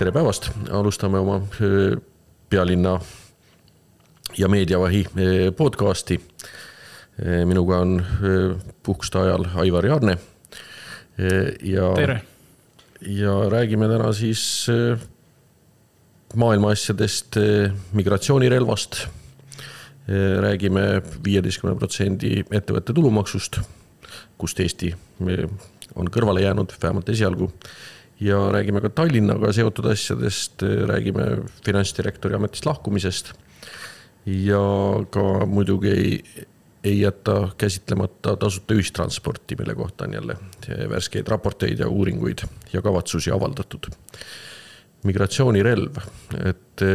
Tere päevast, alustame oma pealinna ja meediavahi podcasti. Minuga on puhkuste ajal Aivar Jaarne. Tere! Ja räägime täna siis maailma asjadest, migratsioonirelvast. Räägime 15% ettevõtte tulumaksust, kust Eesti on kõrvale jäänud, vähemalt esialgu. Ja räägime ka Tallinnaga seotud asjadest, räägime finantsdirektori ametist lahkumisest ja ka muidugi ei jätta käsitlemata tasuta ühistransporti, mille kohta on jälle värskeid raporteid ja uuringuid ja kavatsusi avaldatud. Migratsioonirelv, et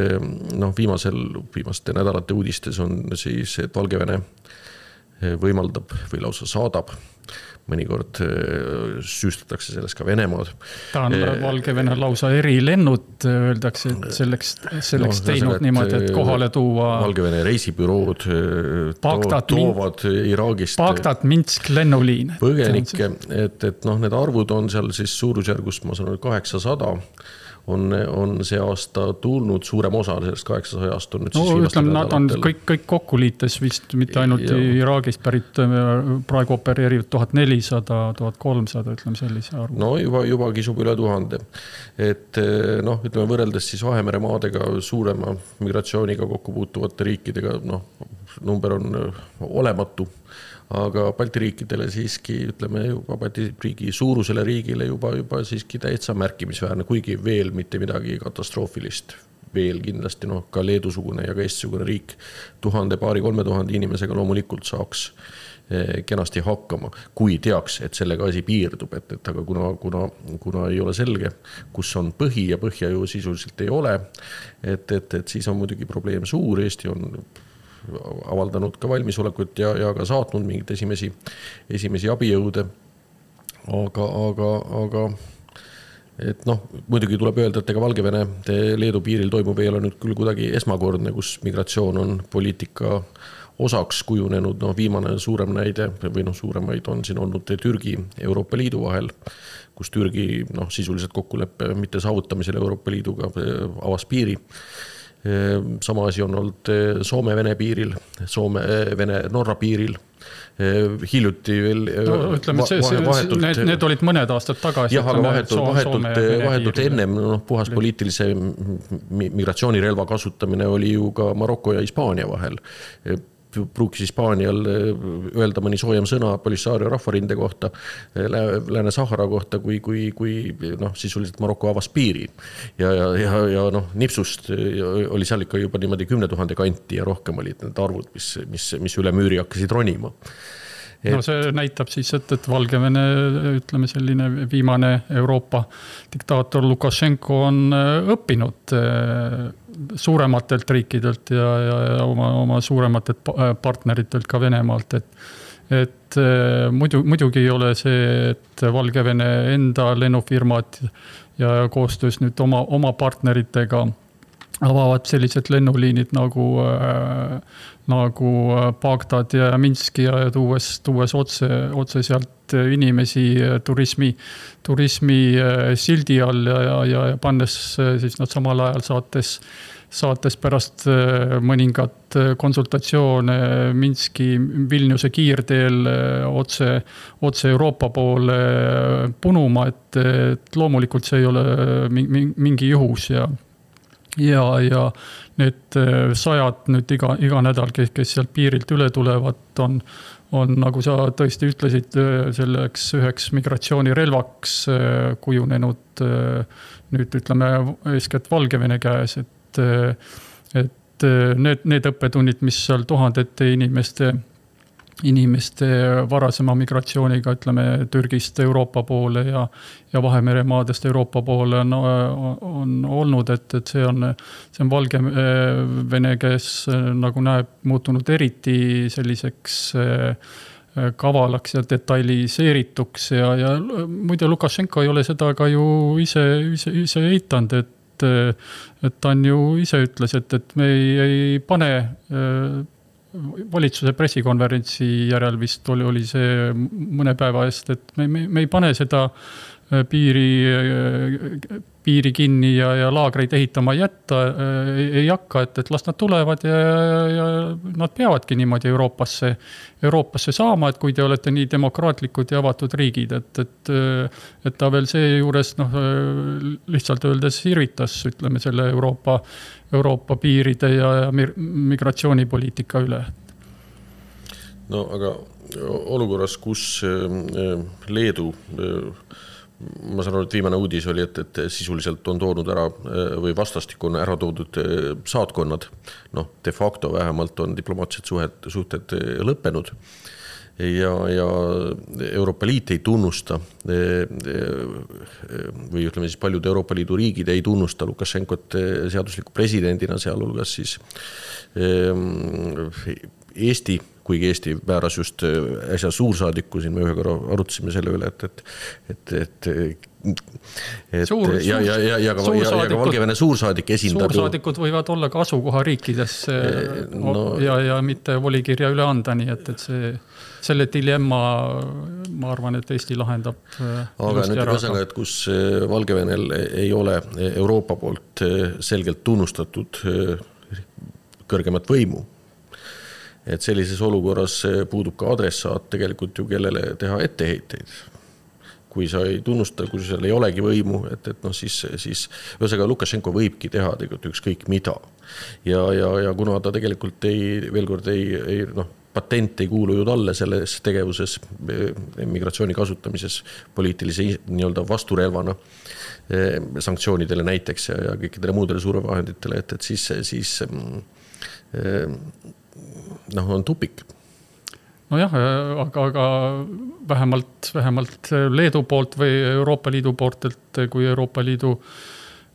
viimaste nädalate uudistes on siis, et Valgevene võimaldab või lausa saadab. Mõnikord süüstatakse sellest ka Venemaad. Ta on Valgevene lausa erilennud, öeldakse, et selleks teinud niimoodi, et kohale tuua Valgevene reisibürood toovad Iraagist Bagdad, Minsk lennuliin. Põgenikke, et need arvud on seal siis suurusjärgus, ma sanon, 800 on see aasta tulnud, suurem osa sellest 800-ast on nüüd siis ütleme, nad on kõik kokku liites vist, mitte ainult Iraagist pärit, praegu opereerivad 1400, 1300, ütleme sellise arvu. No juba kisub üle 1000. Et ütleme võrreldes siis Vahemere maadega suurema migratsiooniga kokku puutuvate riikidega, number on olematu. Aga Balti riikidele siiski, ütleme juba Balti riigi suurusele riigile juba siiski täitsa märkimisväärne, kuigi veel mitte midagi katastroofilist. Veel kindlasti ka Leedusugune ja ka Eestisugune riik 1000-3000 inimesega loomulikult saaks kenasti hakkama, kui teaks, et sellega asi piirdub, aga kuna ei ole selge, kus on põhi ja põhja ju sisuliselt ei ole, et siis on muidugi probleem suur, Eesti on avaldanud ka valmisolekut ja ka saatnud mingid esimesi abijõude. Aga muidugi tuleb öelda, et ega Valgevene Leedu piiril toimub ei ole nüüd küll kuidagi esmakordne, kus migratsioon on poliitika osaks kujunenud. Viimane suurem näide või suuremaid on siin olnud Türgi Euroopa Liidu vahel, kus Türgi sisuliselt kokkuleppe mitte saavutamisel Euroopa Liiduga avas piiri. Sama asi on olnud Soome-Vene piiril, Soome-Vene-Norra piiril. Hiljuti veel need olid mõned aastad tagasi. Jah, aga vahetult ennem puhas poliitilise migratsioonirelva kasutamine oli ju ka Maroko ja Hispaania vahel. Pruukis Hispaanial öelda mõni soojem sõna Polisario rahvarinde kohta, Lääne-Sahara kohta, kui sisuliselt Maroko avas piiri. Ja nipsust oli seal ikka juba niimoodi 10 000 kanti ja rohkem olid need arvud, mis üle müüri hakkasid ronima. See näitab siis, et Valgevene, ütleme selline viimane Euroopa diktaator Lukašenko on õppinud suurematelt riikidelt ja oma suurematelt partneritelt ka Venemaalt, et muidugi ei ole see, et Valgevene enda lennufirmad ja koostöös nüüd oma partneritega avavad sellised lennuliinid nagu Bagdad ja Minski ja tuues otse sealt inimesi turismi sildi all ja pannes siis nad samal ajal saates pärast mõningat konsultatsioone Minski Vilniuse kiirteel otse Euroopa poole punuma, et loomulikult see ei ole mingi juhus ja need sajad nüüd iga nädal, kes sealt piirilt üle tulevad, on nagu sa tõesti ütlesid, selleks üheks migratsioonirelvaks kujunenud nüüd ütleme eeskätt Valgevene käes, et need õppetunnid, mis seal tuhandete inimeste varasema migratsiooniga, ütleme Türgist Euroopa poole ja Vahemere maadest Euroopa poole on olnud, et see on Valgevene käes nagu näeb muutunud eriti selliseks kavalaks ja detailiseerituks ja muide Lukašenko ei ole seda ka ju ise eitanud, et ta on ju ise ütles, et me ei pane valitsuse pressikonverentsi järel vist oli see mõne päeva eest, et me ei pane seda piiri kinni ja laagreid ehitama jätta ei hakka, et las nad tulevad ja nad peavadki niimoodi Euroopasse saama, et kui te olete nii demokraatlikud ja avatud riigid, et ta veel see juures lihtsalt öeldes irvitas, ütleme, selle Euroopa piiride ja migratsioonipoliitika üle. No aga olukorras, kus Leedu, ma saan aru, et viimane uudis oli, et sisuliselt on toonud ära või vastastik on ära toodud saatkonnad, de facto vähemalt on diplomaatilised suhted lõppenud ja Euroopa Liit ei tunnusta või ütleme siis paljud Euroopa Liidu riigid ei tunnusta Lukašenkot seadusliku presidendina, sealhulgas siis Eesti, kuigi Eesti määras just äsja suursaadiku, siin me ühe korra arutasime selle üle, ja ka Valgevene suursaadik esindab. Suursaadikud võivad olla ka asukoha riikides ja mitte volikirja üle anda, nii et selle dilemma, ma arvan, et Eesti lahendab. Aga nüüd ühesõnaga, et kus Valgevenel ei ole Euroopa poolt selgelt tunnustatud kõrgemat võimu, et sellises olukorras puudub ka adressaat tegelikult ju kellele teha etteheiteid. Kui sa ei tunnusta, kui seal ei olegi võimu, siis ühesõnaga Lukašenko võibki teha tegelikult ükskõik mida. Ja kuna ta tegelikult patent ei kuulu ju talle selles tegevuses, migratsiooni kasutamises poliitilise nii-öelda vasturelvana sanktsioonidele näiteks ja kõikidele muudele survevahenditele, et siis on tupik. Nojah, aga vähemalt Leedu poolt või Euroopa Liidu poolt, et kui Euroopa Liidu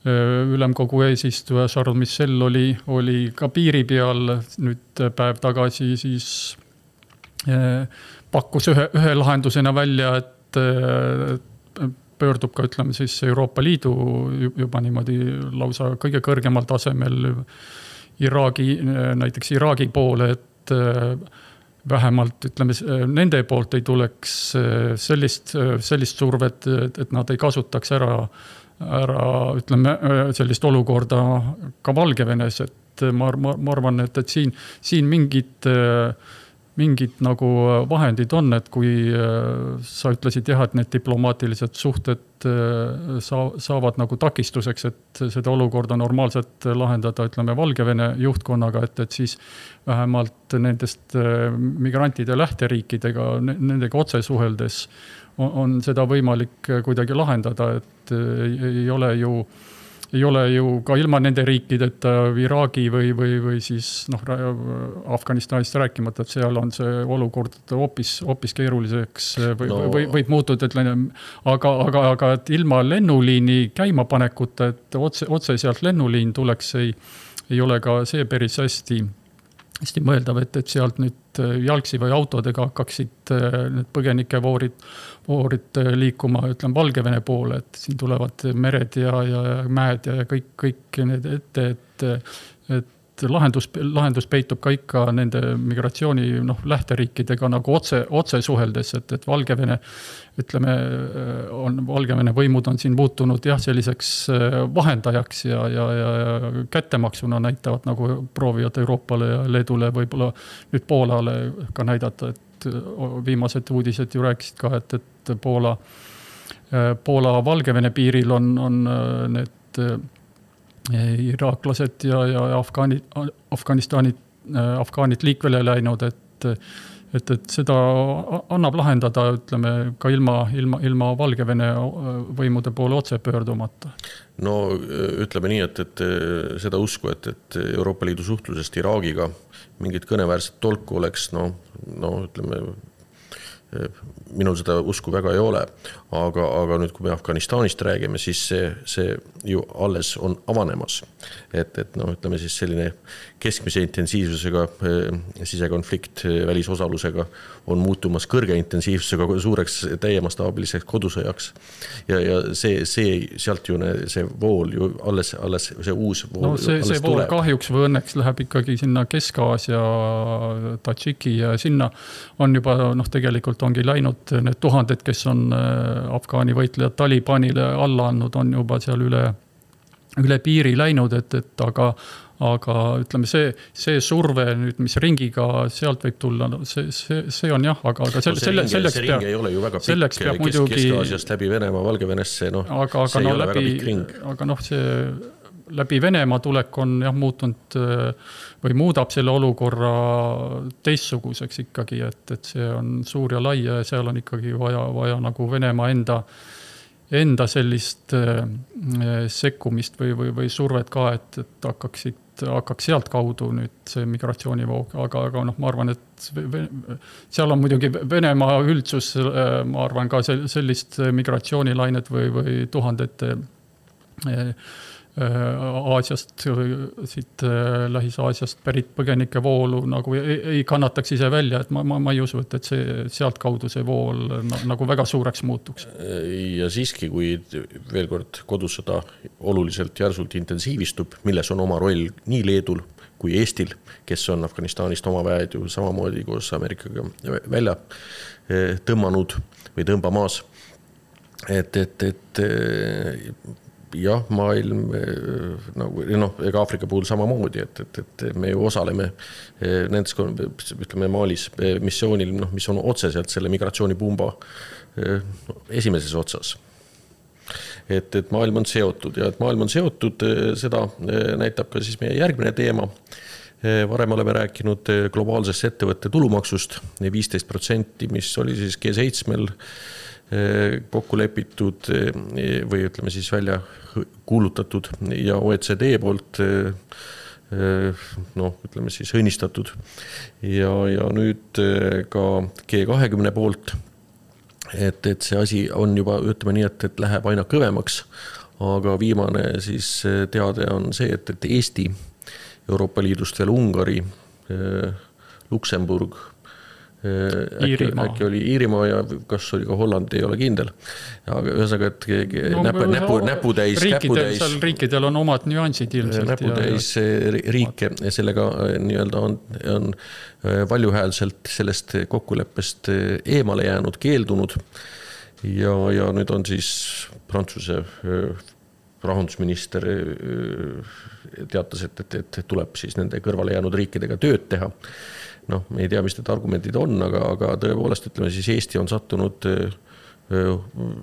ülemkogu eesistuja Charles Michel oli ka piiri peal nüüd päev tagasi, siis pakkus ühe lahendusena välja, et pöördub ka, ütleme siis Euroopa Liidu juba niimoodi lausa kõige kõrgemal tasemel näiteks Iraagi poole, et vähemalt, ütleme, nende poolt ei tuleks sellist survet, et nad ei kasutaks ära, ütleme, sellist olukorda ka Valgevenes, et ma arvan, et siin mingid nagu vahendid on, et kui sa ütlesid jah, et need diplomaatilised suhted saavad nagu takistuseks, et seda olukorda normaalselt lahendada, ütleme, Valgevene juhtkonnaga, et siis vähemalt nendest migrantide lähteriikidega, nendega otse suheldes on seda võimalik kuidagi lahendada, et ei ole ju ka ilma nende riikideta Iraagi või siis Afganistanist rääkimata, et seal on see olukord hoopis keeruliseks võib muutuda, aga et ilma lennuliini käimapanekuta, et otse sealt lennuliin tuleks, ei ole ka see päris hästi mõeldav, et sealt nüüd jalgsi või autodega hakkaksid need põgenikevoorid liikuma, ütleme, Valgevene poole, et siin tulevad mered ja mäed ja kõik need ette, et lahendus peitub ka ikka nende migratsiooni lähteriikidega nagu otse suheldes, et Valgevene, ütleme, Valgevene võimud on siin muutunud selliseks vahendajaks ja kättemaksuna näitavad, nagu proovivad Euroopale ja Leedule võib-olla nüüd Poolale ka näidata, et viimased uudised ju rääkisid ka, et Poola Valgevene piiril on need iraaklased ja Afgaanid liikvele läinud, et seda annab lahendada, ütleme, ka ilma Valgevene võimude poole otse pöördumata. No ütleme nii, et seda usku, et Euroopa Liidu suhtlusest Iraagiga mingit kõneväärset tolku oleks, ütleme, minul seda usku väga ei ole, aga nüüd, kui me Afganistanist räägime, siis see ju alles on avanemas, et ütleme siis selline keskmise intensiivsusega sisekonflikt välisosalusega on muutumas kõrge intensiivsusega suureks täiemastaabiliseks kodusõjaks ja see sealt ju see vool ju alles see uus vool see vool tuleb. Kahjuks või õnneks läheb ikkagi sinna Kesk-Aasia, Tadžiki ja sinna on juba tegelikult ongi läinud need tuhanded, kes on Afgaani võitlejad Talibanile alla andnud, on juba seal üle piiri läinud, et aga ütleme, see surve nüüd, mis ringiga sealt võib tulla, no see on jah, aga selleks ring ei ole ju väga pikk, Kesk-Aasiast läbi Venemaa, Valgevenesse, see ei ole väga pikk ring. Aga see läbi Venemaa tulek on jah muutunud või muudab selle olukorra teistsuguseks ikkagi, et see on suur ja lai ja seal on ikkagi vaja nagu Venemaa enda sellist sekkumist või survet ka, et hakkaks sealt kaudu nüüd see migratsioonivoog, aga ma arvan, et seal on muidugi Venemaa üldsus, ma arvan ka sellist migratsioonilainet või tuhandete Aasiast, siit Lähis-Aasiast pärit põgenike voolu nagu ei kannataks ise välja, et ma ei usu, et see sealt kaudu see vool nagu väga suureks muutuks. Ja siiski, kui veel kord kodusõda oluliselt järsult intensiivistub, milles on oma roll nii Leedul kui Eestil, kes on Afganistanist oma väed ju samamoodi koos Ameerikaga välja tõmmanud või tõmbamas, et jah, maailm ega Aafrika puhul samamoodi, et me ju osaleme nendes, ütleme, Malis missioonil, mis on otseselt selle migratsioonipumba esimeses otsas. Et maailm on seotud ja et maailm on seotud, seda näitab ka siis meie järgmine teema. Varem oleme rääkinud globaalsest ettevõtte tulumaksust 15%, mis oli siis G7-l kokku lepitud või ütleme siis välja kuulutatud ja OECD poolt ütleme siis õnnistatud ja nüüd ka G20 poolt, et see asi on juba, ütleme nii, et läheb aina kõvemaks, aga viimane siis teade on see, et Eesti, Euroopa Liidust veel Ungari, Luksemburg, äkki oli Iirimaa ja kas oli ka Holland, ei ole kindel. Aga ühesõnaga, et näputäis. Riikidel on omad nüansid ilmselt. Näputäis riike sellega nii-öelda on valjuhäälselt sellest kokkuleppest eemale jäänud, keeldunud ja nüüd on siis Prantsuse rahandusminister teatas, et tuleb siis nende kõrvale jäänud riikidega tööd teha. Me ei tea, mis need argumendid on, aga tõepoolest, ütleme siis Eesti on sattunud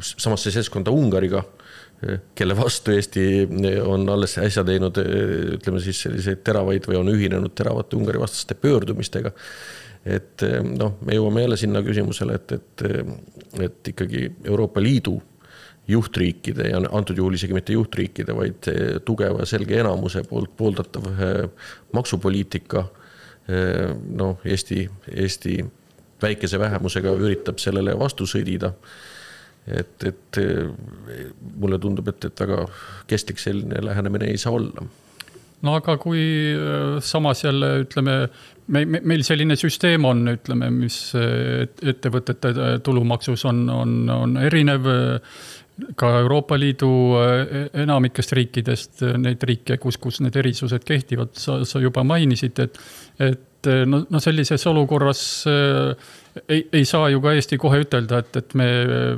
samasse seltskonda Ungariga, kelle vastu Eesti on alles äsja teinud, ütleme siis selliseid teravaid või on ühinenud teravate Ungari vastaste pöördumistega. Et me jõuame jälle sinna küsimusele, et ikkagi Euroopa Liidu juhtriikide ja antud juhul isegi mitte juhtriikide, vaid tugeva selge enamuse poolt pooldatav maksupoliitika Eesti väikese vähemusega üritab sellele vastu sõdida. Et mulle tundub, et väga kestlik selline lähenemine ei saa olla. No aga kui samas jälle, ütleme, meil selline süsteem on, ütleme, mis ettevõtete tulumaksus on erinev, ka Euroopa Liidu enamikest riikidest, neid riike, kus need erisused kehtivad, sa juba mainisid, et sellises olukorras ei saa ju ka Eesti kohe ütelda, et me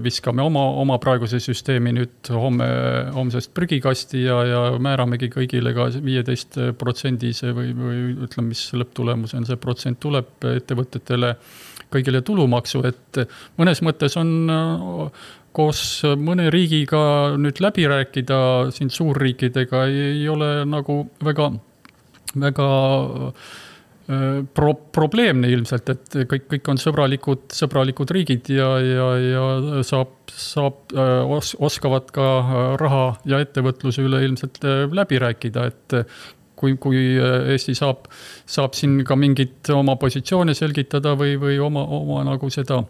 viskame oma praeguse süsteemi nüüd homsest prügikasti ja määramegi kõigile ka 15% või ütleme, mis lõpptulemus on, see protsent tuleb ettevõtetele kõigile tulumaksu, et mõnes mõttes on koos mõne riigiga nüüd läbi rääkida siin suurriikidega ei ole nagu väga probleemne ilmselt, et kõik on sõbralikud riigid ja oskavad ka raha ja ettevõtluse üle ilmselt läbi rääkida, et kui Eesti saab siin ka mingit oma positsioone selgitada või oma nagu seda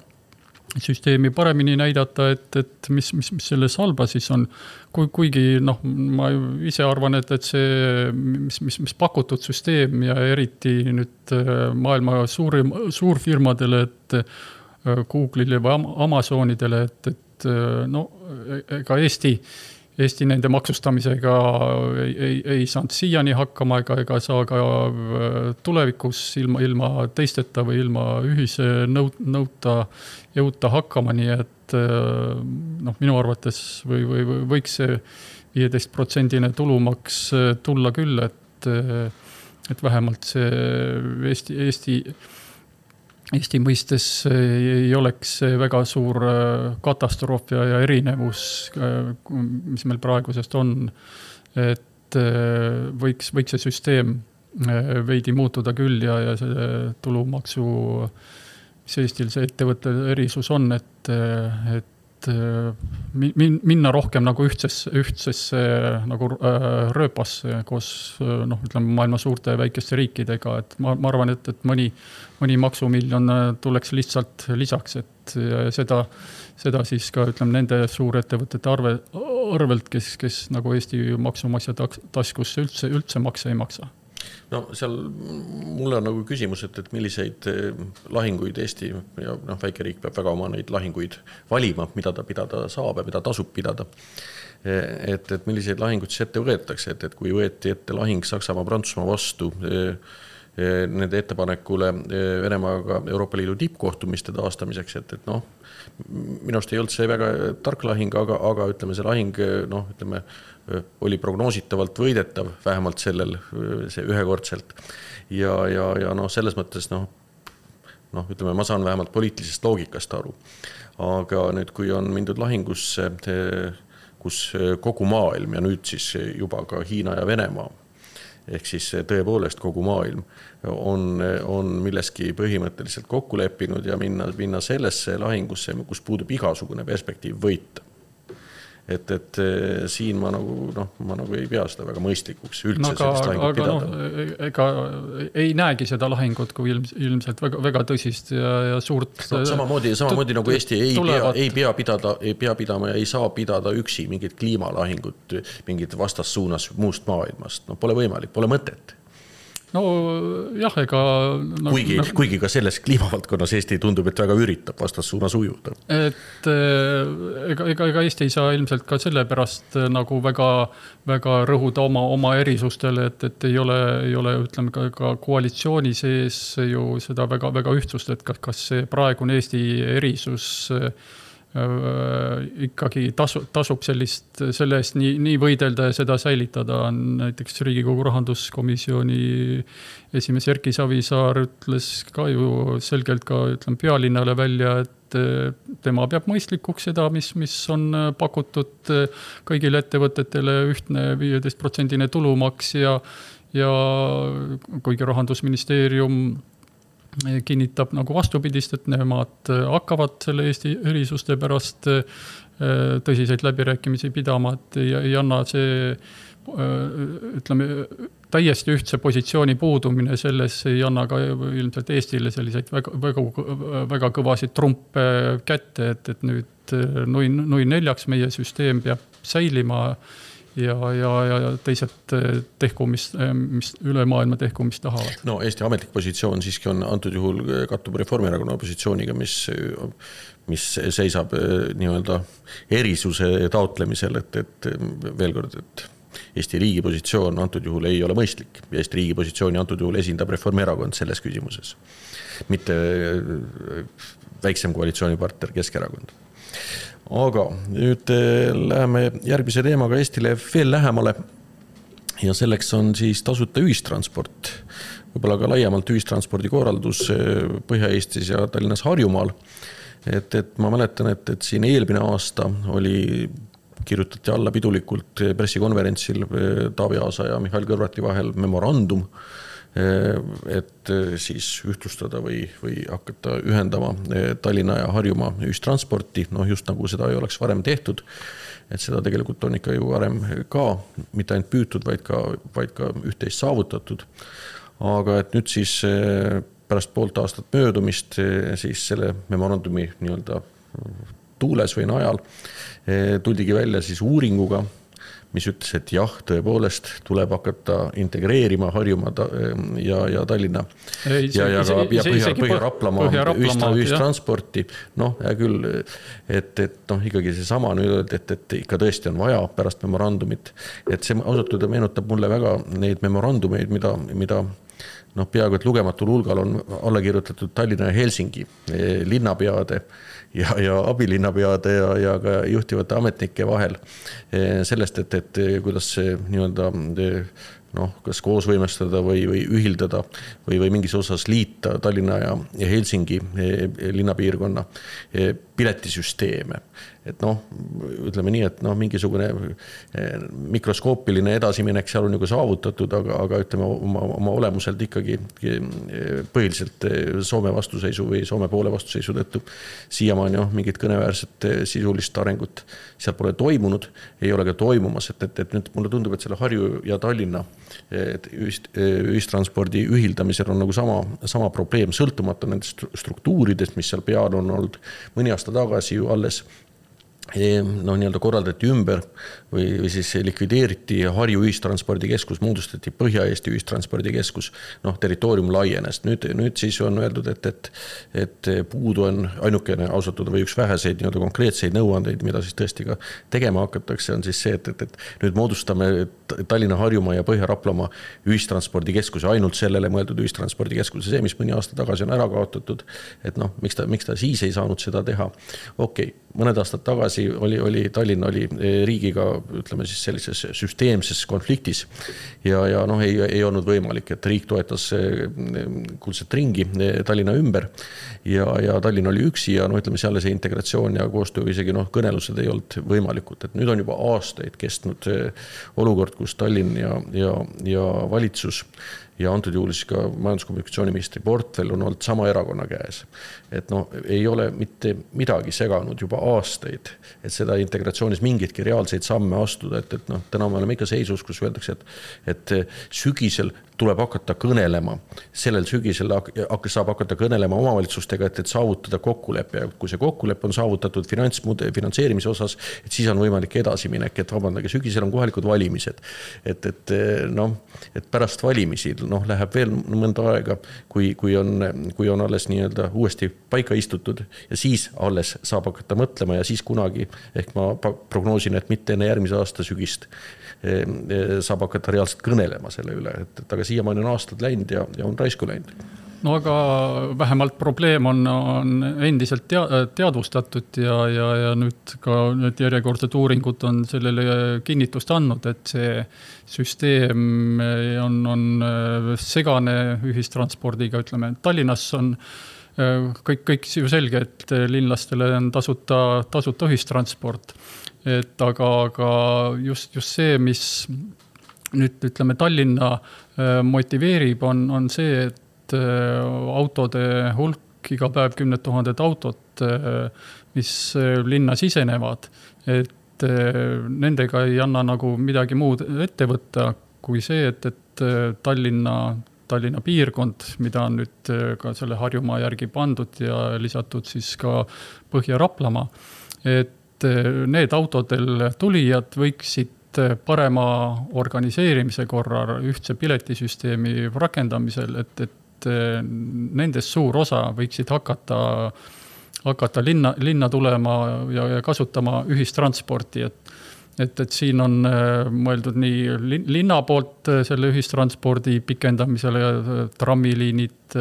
süsteemi paremini näidata, et mis selles halba siis on. Kuigi ma ise arvan, et see, mis pakutud süsteem ja eriti nüüd maailma suurfirmadele, et Google'ile või Amazonidele, et ega Eesti Eesti nende maksustamisega ei saanud siiani hakkama ega saa ka tulevikus ilma teisteta või ilma ühise jõuta hakkama, nii et minu arvates võiks see 15% tulumaks tulla küll, et vähemalt see Eesti mõistes ei oleks väga suur katastroof ja erinevus, mis meil praegusest on, et võiks see süsteem veidi muutuda küll ja see tulumaksu, mis Eestil see ettevõtte erisus on, et minna rohkem nagu ühtsesse nagu rööpasse koos ütleme maailma suurte ja väikeste riikidega, et ma arvan, et mõni maksumiljon tuleks lihtsalt lisaks, et seda siis ka ütleme nende suurettevõtete arvelt, kes nagu Eesti maksumaksja taskusse üldse makse ei maksa. No seal mulle on nagu küsimus, et milliseid lahinguid Eesti ja väikeriik peab väga oma neid lahinguid valima, mida ta pidada saab ja mida tasub pidada. Et milliseid lahinguid siis ette võetakse, et kui võeti ette lahing Saksamaa-Prantsusmaa vastu nende ettepanekule Venemaaga Euroopa Liidu tippkohtumiste taastamiseks, et minust ei olnud see väga tark lahing, aga ütleme see lahing oli prognoositavalt võidetav, vähemalt see ühekordselt. Ja selles mõttes, ütleme, ma saan vähemalt poliitilisest loogikast aru. Aga nüüd, kui on mindud lahingusse, kus kogu maailm ja nüüd siis juba ka Hiina ja Venemaa, ehk siis tõepoolest kogu maailm on milleski põhimõtteliselt kokku leppinud ja minna sellesse lahingusse, kus puudub igasugune perspektiiv võita. Et siin ma nagu ei pea seda väga mõistlikuks üldse sellist lahingut pidada. Ega ei näegi seda lahingut kui ilmselt väga tõsist ja suurt. Samamoodi nagu Eesti ei pea pidama ja ei saa pidada üksi mingit kliimalahingut, mingit vastassuunas muust maailmast. Pole võimalik, pole mõtet. No jah, ega... Kuigi ka selles kliimavaldkonnas Eesti tundub, et väga üritab vastassuunas ujuda. Et ega Eesti ei saa ilmselt ka selle pärast nagu väga rõhuda oma erisustele, et ei ole ütleme ka koalitsiooni sees ju seda väga ühtsust, et kas see praegune Eesti erisus ikkagi tasub selle eest nii võidelda ja seda säilitada. Näiteks Riigikogu rahanduskomisjoni esimees Erki Savisaar ütles ka ju selgelt ka pealinnale välja, et tema peab mõistlikuks seda, mis on pakutud kõigile ettevõtetele ühtne 15% tulumaks ja kuigi rahandusministeerium kinnitab nagu vastupidist, et nemad hakkavad selle Eesti erisuste pärast tõsiseid läbirääkimisi pidama, et ei anna see ütleme täiesti ühtse positsiooni puudumine selles ei anna ka ilmselt Eestile selliseid väga kõvasid trumpe kätte, et nüüd nui neljaks meie süsteem peab säilima ja teised tehku, mis üle maailma tehku, mis tahavad. No Eesti ametlik positsioon siiski on antud juhul kattub Reformierakonna positsiooniga, mis seisab nii-öelda erisuse taotlemisel, et veel kord, et Eesti riigi positsioon antud juhul ei ole mõistlik ja Eesti riigi positsiooni antud juhul esindab Reformierakond selles küsimuses, mitte väiksem koalitsioonipartner Keskerakond. Aga nüüd läheme järgmise teemaga Eestile veel lähemale ja selleks on siis tasuta ühistransport, võib-olla ka laiemalt ühistranspordi korraldus Põhja-Eestis ja Tallinnas Harjumaal. Et ma mäletan, et siin eelmine aasta kirjutati alla pidulikult pressikonverentsil Taavi Aasa ja Mihhail Kõlvarti vahel memorandum, et siis ühtlustada või hakata ühendama Tallinna ja Harjumaa ühistransporti, just nagu seda ei oleks varem tehtud, et seda tegelikult on ikka ju varem ka, mitte ainult püütud, vaid ka üht-teist saavutatud. Aga et nüüd siis pärast poolt aastat möödumist siis selle memorandumi nii-öelda tuules või najal tuldigi välja siis uuringuga, mis ütles, et jah, tõepoolest tuleb hakata integreerima Harjumaa ja Tallinna ja Põhja-Raplamaa ühistransporti. Noh, hea küll, et ikkagi see sama nüüd, et ikka tõesti on vaja pärast memorandumit. Et see ausalt meenutab mulle väga neid memorandumeid, mida peaaegu et lugematul hulgal on alla kirjutatud Tallinna ja Helsingi linnapeade ja abilinnapeade ja ka juhtivate ametnike vahel sellest, et kuidas see nii-öelda kas koos võimestada või ühildada või mingis osas liita Tallinna ja Helsingi linnapiirkonna piletisüsteeme. Et ütleme nii, et mingisugune mikroskoopiline edasiminek seal on nagu saavutatud, aga ütleme oma olemuselt ikkagi põhiliselt Soome vastuseisu või Soome poole vastuseisu tõttu siiamaani mingit kõneväärset sisulist arengut seal pole toimunud, ei ole ka toimumas, et nüüd mulle tundub, et selle Harju ja Tallinna ühistranspordi ühildamisel on nagu sama probleem, sõltumata nendest struktuuridest, mis seal peal on olnud mõni aasta tagasi ju alles nii-öelda korraldati ümber või siis likvideeriti Harju ühistranspordikeskus, moodustati Põhja-Eesti ühistranspordikeskus, territoorium laienes. Nüüd siis on öeldud, et puudu on ainukene ausatud või üks väheseid nii-öelda konkreetseid nõuandeid, mida siis tõesti ka tegema hakatakse, on siis see, et nüüd moodustame Tallinna, Harjumaa ja Põhja-Raplamaa ühistranspordikeskuse, ainult sellele mõeldud ühistranspordikeskuse, see, mis mõni aasta tagasi on ära kaotatud, et miks ta siis ei saanud seda teha. Okei, mõned aastad tagasi oli Tallinna riigiga, ütleme siis sellises süsteemses konfliktis ja ei olnud võimalik, et riik toetas kuldset ringi Tallinna ümber ja Tallinn oli üksi ja ütleme seal see integratsioon ja koostöö isegi kõnelused ei olnud võimalikud, et nüüd on juba aastaid kestnud olukord, kus Tallinn ja valitsus ja antud juhul siis ka majanduskommunikatsiooniministri portfell on olnud sama erakonna käes. Et ei ole mitte midagi seganud juba aastaid, et seda integratsioonis mingitki reaalseid samme astuda, et täna me oleme ikka seisus, kus öeldakse, et sügisel tuleb hakata kõnelema. Sellel sügisel saab hakata kõnelema omavalitsustega, et saavutada kokkulepe. Kui see kokkulepe on saavutatud finantseerimise osas, et siis on võimalik edasiminek, et vabandage, sügisel on kohalikud valimised. Et pärast valimisi läheb veel mõnda aega, kui on alles nii-öelda uuesti paika istutud ja siis alles saab hakata mõtlema ja siis kunagi, ehk ma prognoosin, et mitte enne järgmise aasta sügist saab hakata reaalselt kõnelema selle üle, et aga siiamaani on aastad läinud ja on raisku läinud. No aga vähemalt probleem on endiselt teadvustatud ja nüüd ka järjekordsed uuringud on sellele kinnitust andnud, et see süsteem on segane ühistranspordiga, ütleme, Tallinnas on kõik ju selge, et linlastele on tasuta ühistransport. Aga just see, mis nüüd ütleme Tallinna motiveerib, on see, et autode hulk iga päev 10 000 autot, mis linna sisenevad, et nendega ei anna nagu midagi muud ette võtta kui see, et Tallinna piirkond, mida on nüüd ka selle Harjumaa järgi pandud ja lisatud siis ka Põhja-Raplamaa, et need autodel tulijad võiksid parema organiseerimise korral ühtse piletisüsteemi rakendamisel, et nendest suur osa võiksid hakata linna tulema ja kasutama ühistransporti, et siin on mõeldud nii linna poolt selle ühistranspordi pikendamisele ja trammiliinid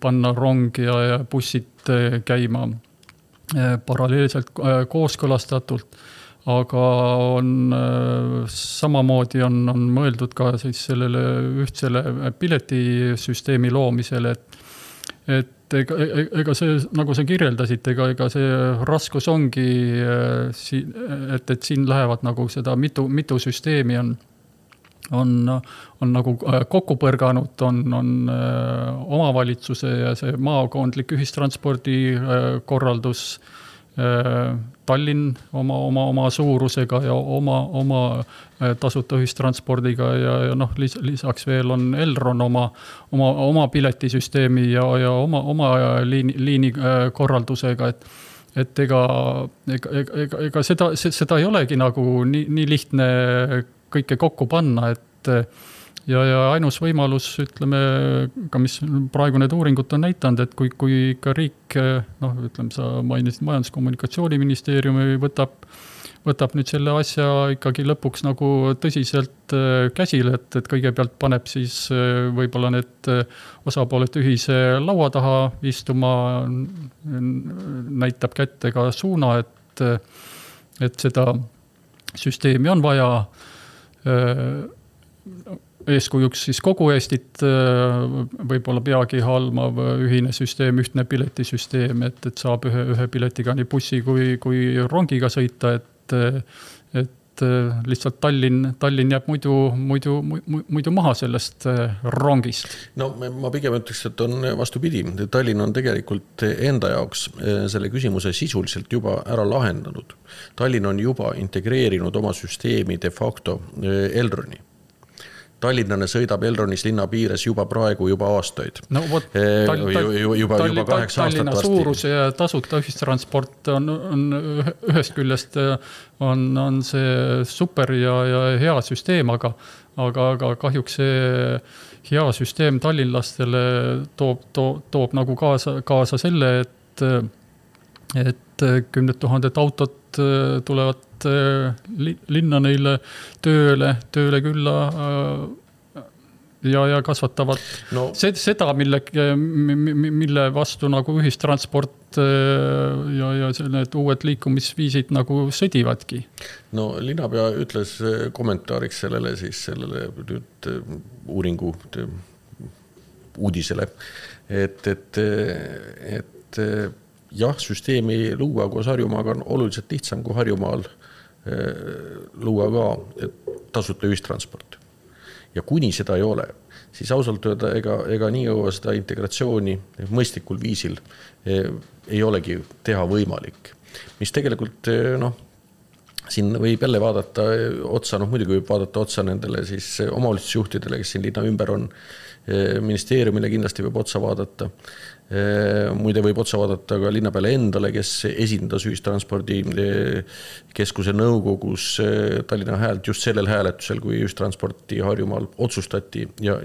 panna rong ja bussid käima paralleelselt kooskõlastatult, aga samamoodi on mõeldud ka siis sellele ühtsele piletisüsteemi loomisele, et ega see, nagu sa kirjeldasid, ega see raskus ongi, et siin lähevad nagu seda mitu süsteemi on nagu kokku põrganud, on omavalitsuse ja see maakondlik ühistranspordi korraldus, Tallinn oma suurusega ja oma tasuta ühistranspordiga ja lisaks veel on Elron oma piletisüsteemi ja oma liini korraldusega, ega seda ei olegi nagu nii lihtne kõike kokku panna, et ja ainus võimalus, ütleme, ka mis praegu need uuringud on näitanud, et kui ikka riik, ütleme, sa mainisid Majandus-Kommunikatsiooniministeeriumi võtab nüüd selle asja ikkagi lõpuks nagu tõsiselt käsile, et kõigepealt paneb siis võib-olla need osapooled ühise laua taha istuma, näitab kätte ka suuna, et seda süsteemi on vaja, eeskujuks siis kogu Eestit võib-olla peagi halmav ühine süsteem, ühtne piletisüsteem, et saab ühe piletiga nii bussi kui rongiga sõita, et lihtsalt Tallinn jääb muidu maha sellest rongist. No ma pigem ütleks, et on vastupidi. Tallinn on tegelikult enda jaoks selle küsimuse sisuliselt juba ära lahendanud. Tallinn on juba integreerinud oma süsteemi de facto Elroni. Tallinnane sõidab Elronis linna piires juba praegu juba aastaid. No võt, juba 8 aastat Tallinna vasti. Suurus ja tasuta ühistransport on ühest küljest on see super ja hea süsteem, aga kahjuks see hea süsteem tallinlastele toob nagu kaasa selle, et 10 000 autot tulevad linna neile tööle külla ja kasvatavad seda, mille vastu nagu ühistransport ja need uued liikumisviisid nagu sõdivadki. No linnapea ütles kommentaariks sellele nüüd uuringu uudisele, et jah, süsteemi luua koos Harjumaaga on oluliselt lihtsam kui Harjumaal luua ka tasuta ühistransport. Ja kuni seda ei ole, siis ausalt öelda, ega nii õua seda integratsiooni mõistlikul viisil ei olegi teha võimalik. Mis tegelikult, siin võib jälle vaadata otsa, muidugi võib vaadata otsa nendele siis omavalitsusjuhtidele, kes siin linna ümber on, ministeeriumile kindlasti võib otsa vaadata. Muide võib otsa vaadata ka linna peale endale, kes esindas ühistranspordi keskuse nõukogus Tallinna häält just sellel hääletusel, kui ühistransporti Harjumaal otsustati ja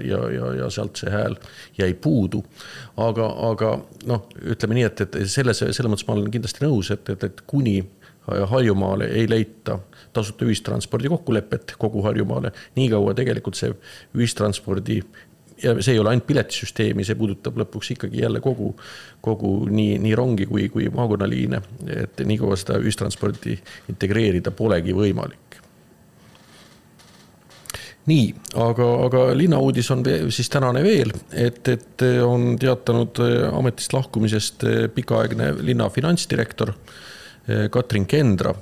sealt see hääl jäi puudu. Aga ütleme nii, et selle mõttes ma olen kindlasti nõus, et kuni Harjumaale ei leita tasuta ühistranspordi kokkulepet kogu Harjumaale, nii kaua tegelikult see ühistranspordi ja see ei ole ainult piletisüsteemi, see puudutab lõpuks ikkagi jälle kogu nii rongi kui maakonnaliine, et nii kaua seda ühistransporti integreerida polegi võimalik. Nii, aga linnauudis on siis tänane veel, et on teatanud ametist lahkumisest pikaaegne linna finantsdirektor Katrin Kendra,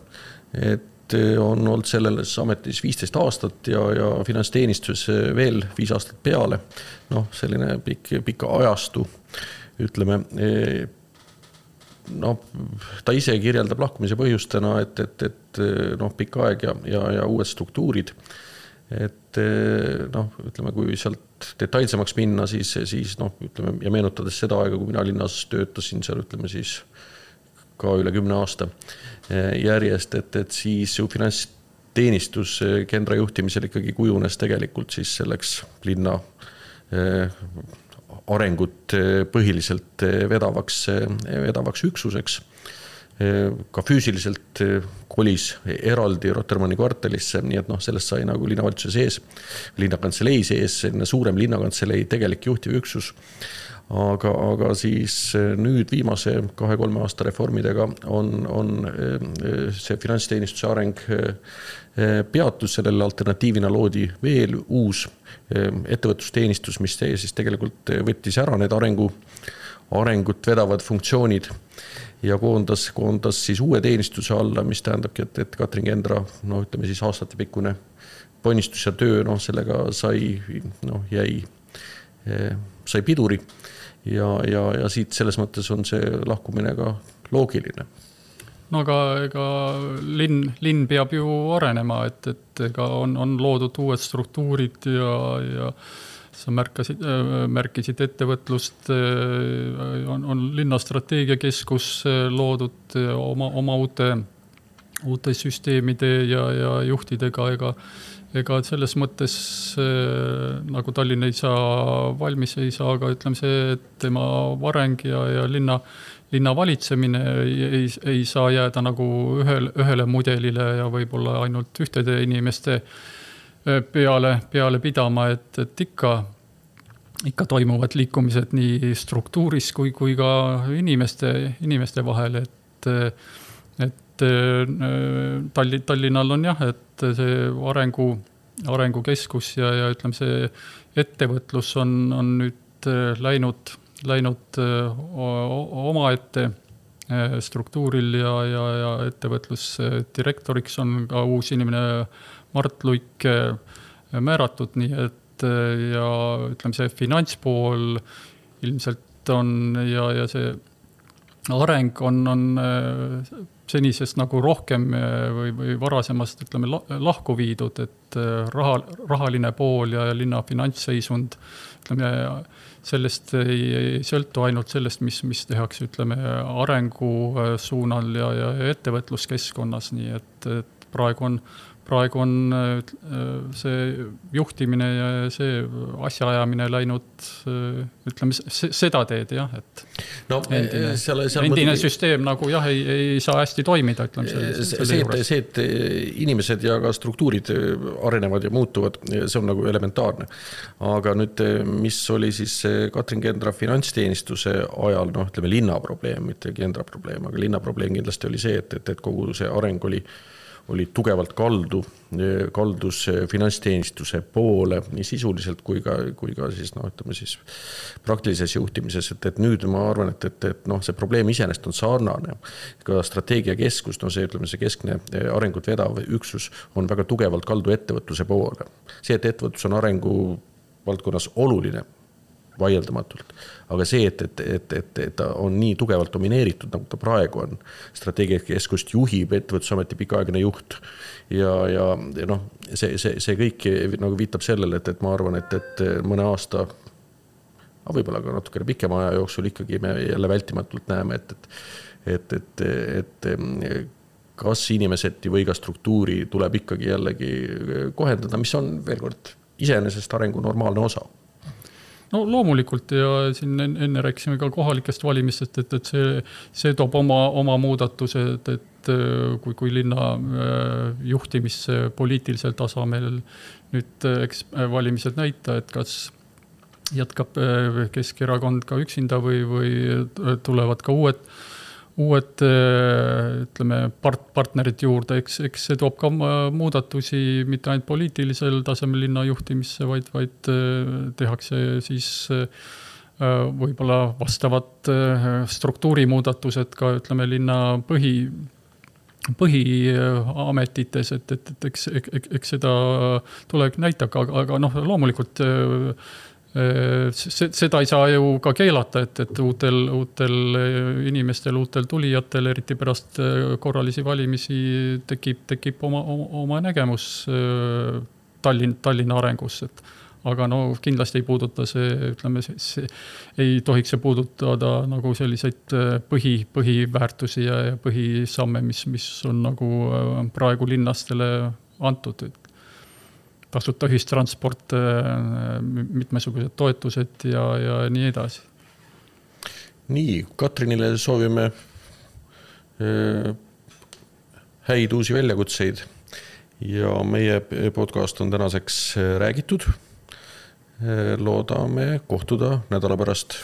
et on olnud selles ametis 15 aastat ja finantsteenistus veel 5 aastat peale. Selline pika ajastu, ütleme, ta ise kirjeldab lahkumise põhjustena, et pikka aeg ja uued struktuurid. Et ütleme, kui sealt detailsemaks minna, siis ütleme, ja meenutades seda aega, kui mina linnas töötasin seal, ütleme siis ka üle 10 aasta järjest, et siis ju finantsteenistus Kendra juhtimisel ikkagi kujunes tegelikult siis selleks linna arengut põhiliselt vedavaks üksuseks. Ka füüsiliselt kolis eraldi Rotermanni kvartalisse, nii et sellest sai nagu linnavalitsuse sees, linnakantselei sees, suurem linnakantselei tegelik juhtiv üksus. Aga siis nüüd viimase 2-3 aasta reformidega on see finantsteenistuse areng peatus, sellele alternatiivina loodi veel uus ettevõtlusteenistus, mis siis tegelikult võttis ära need arengut vedavad funktsioonid ja koondas siis uue teenistuse alla, mis tähendabki, et Katrin Kendra, ütleme siis aastatepikkune ponnistus ja töö, sellega sai piduri ja siit selles mõttes on see lahkumine ka loogiline. Aga ega linn peab ju arenema, et ega on loodud uued struktuurid ja sa märkisid ettevõtlust, on linnastrateegiakeskus loodud oma uute süsteemide ja juhtidega, ega selles mõttes nagu Tallinn ei saa valmis, ei saa, aga ütleme see, et tema areng ja linna valitsemine ei saa jääda nagu ühele mudelile ja võib-olla ainult ühtede inimeste peale pidama, et ikka toimuvad liikumised nii struktuuris kui ka inimeste vahel, et Tallinnal on jah, et see arengukeskus ja ütleme, see ettevõtlus on nüüd läinud omaette struktuuril ja ettevõtlusdirektoriks on ka uus inimene Mart Luik määratud, nii et ja ütleme, see finantspool ilmselt on ja see areng on senisest nagu rohkem või varasemast ütleme lahku viidud, et rahaline pool ja linna finantsseisund ütleme, sellest ei sõltu ainult sellest, mis tehakse ütleme arengu suunal ja ettevõtluskeskkonnas, nii et praegu on see juhtimine ja see asjaajamine läinud, ütleme, seda teed, jah, et no, endine süsteem nagu jah, ei saa hästi toimida, ütleme see, et inimesed ja ka struktuurid arenevad ja muutuvad, see on nagu elementaarne. Aga nüüd, mis oli siis Katrin Kendra finantsteenistuse ajal, noh, ütleme linna probleem, mitte Kendra probleem, aga linna probleem kindlasti oli see, et kogu see areng oli tugevalt kaldus finantsteenistuse poole nii sisuliselt kui ka siis, no, ütleme siis praktilises juhtimises, et nüüd ma arvan, et noh, see probleem iseenesest on sarnane. Ka strateegiakeskus, no see, ütleme, see keskne arengut vedav üksus on väga tugevalt kaldu ettevõtluse poole. See, et ettevõtlus on arengu valdkonnas oluline, vaieldamatult. Aga see, et ta on nii tugevalt domineeritud, nagu ta praegu on, strateegiakeskust juhib ettevõtlusameti pikaaegne juht ja noh, see kõik nagu viitab sellele, et ma arvan, et mõne aasta, võib-olla ka natukene pikema aja jooksul ikkagi me jälle vältimatult näeme, et kas inimesed või ka struktuuri tuleb ikkagi jällegi kohendada, mis on veel kord iseenesest arengu normaalne osa. No loomulikult ja siin enne rääkisime ka kohalikest valimistest, et see toob oma muudatused, et kui linna juhtimisse poliitilisel tasemel nüüd valimised näita, et kas jätkab Keskerakond ka üksinda või tulevad ka uued ütleme, partnerid juurde, eks see toob ka muudatusi mitte ainult poliitilisel tasemel linna juhtimisse, vaid tehakse siis võib-olla vastavad struktuurimuudatused ka ütleme linna põhiametites, et eks seda tuleb näitaka, aga noh, loomulikult seda ei saa ju ka keelata, et uutel inimestel, uutel tulijatel, eriti pärast korralisi valimisi tekib oma nägemus Tallinna arengus, aga no kindlasti ei puuduta see, ütleme, ei tohiks see puudutada nagu selliseid põhiväärtusi ja põhisamme, mis on nagu praegu linnastele antud, tasuta ühistransport, mitmesugused toetused ja nii edasi. Nii, Katrinile soovime häid uusi väljakutseid ja meie podcast on tänaseks räägitud. Loodame kohtuda nädala pärast.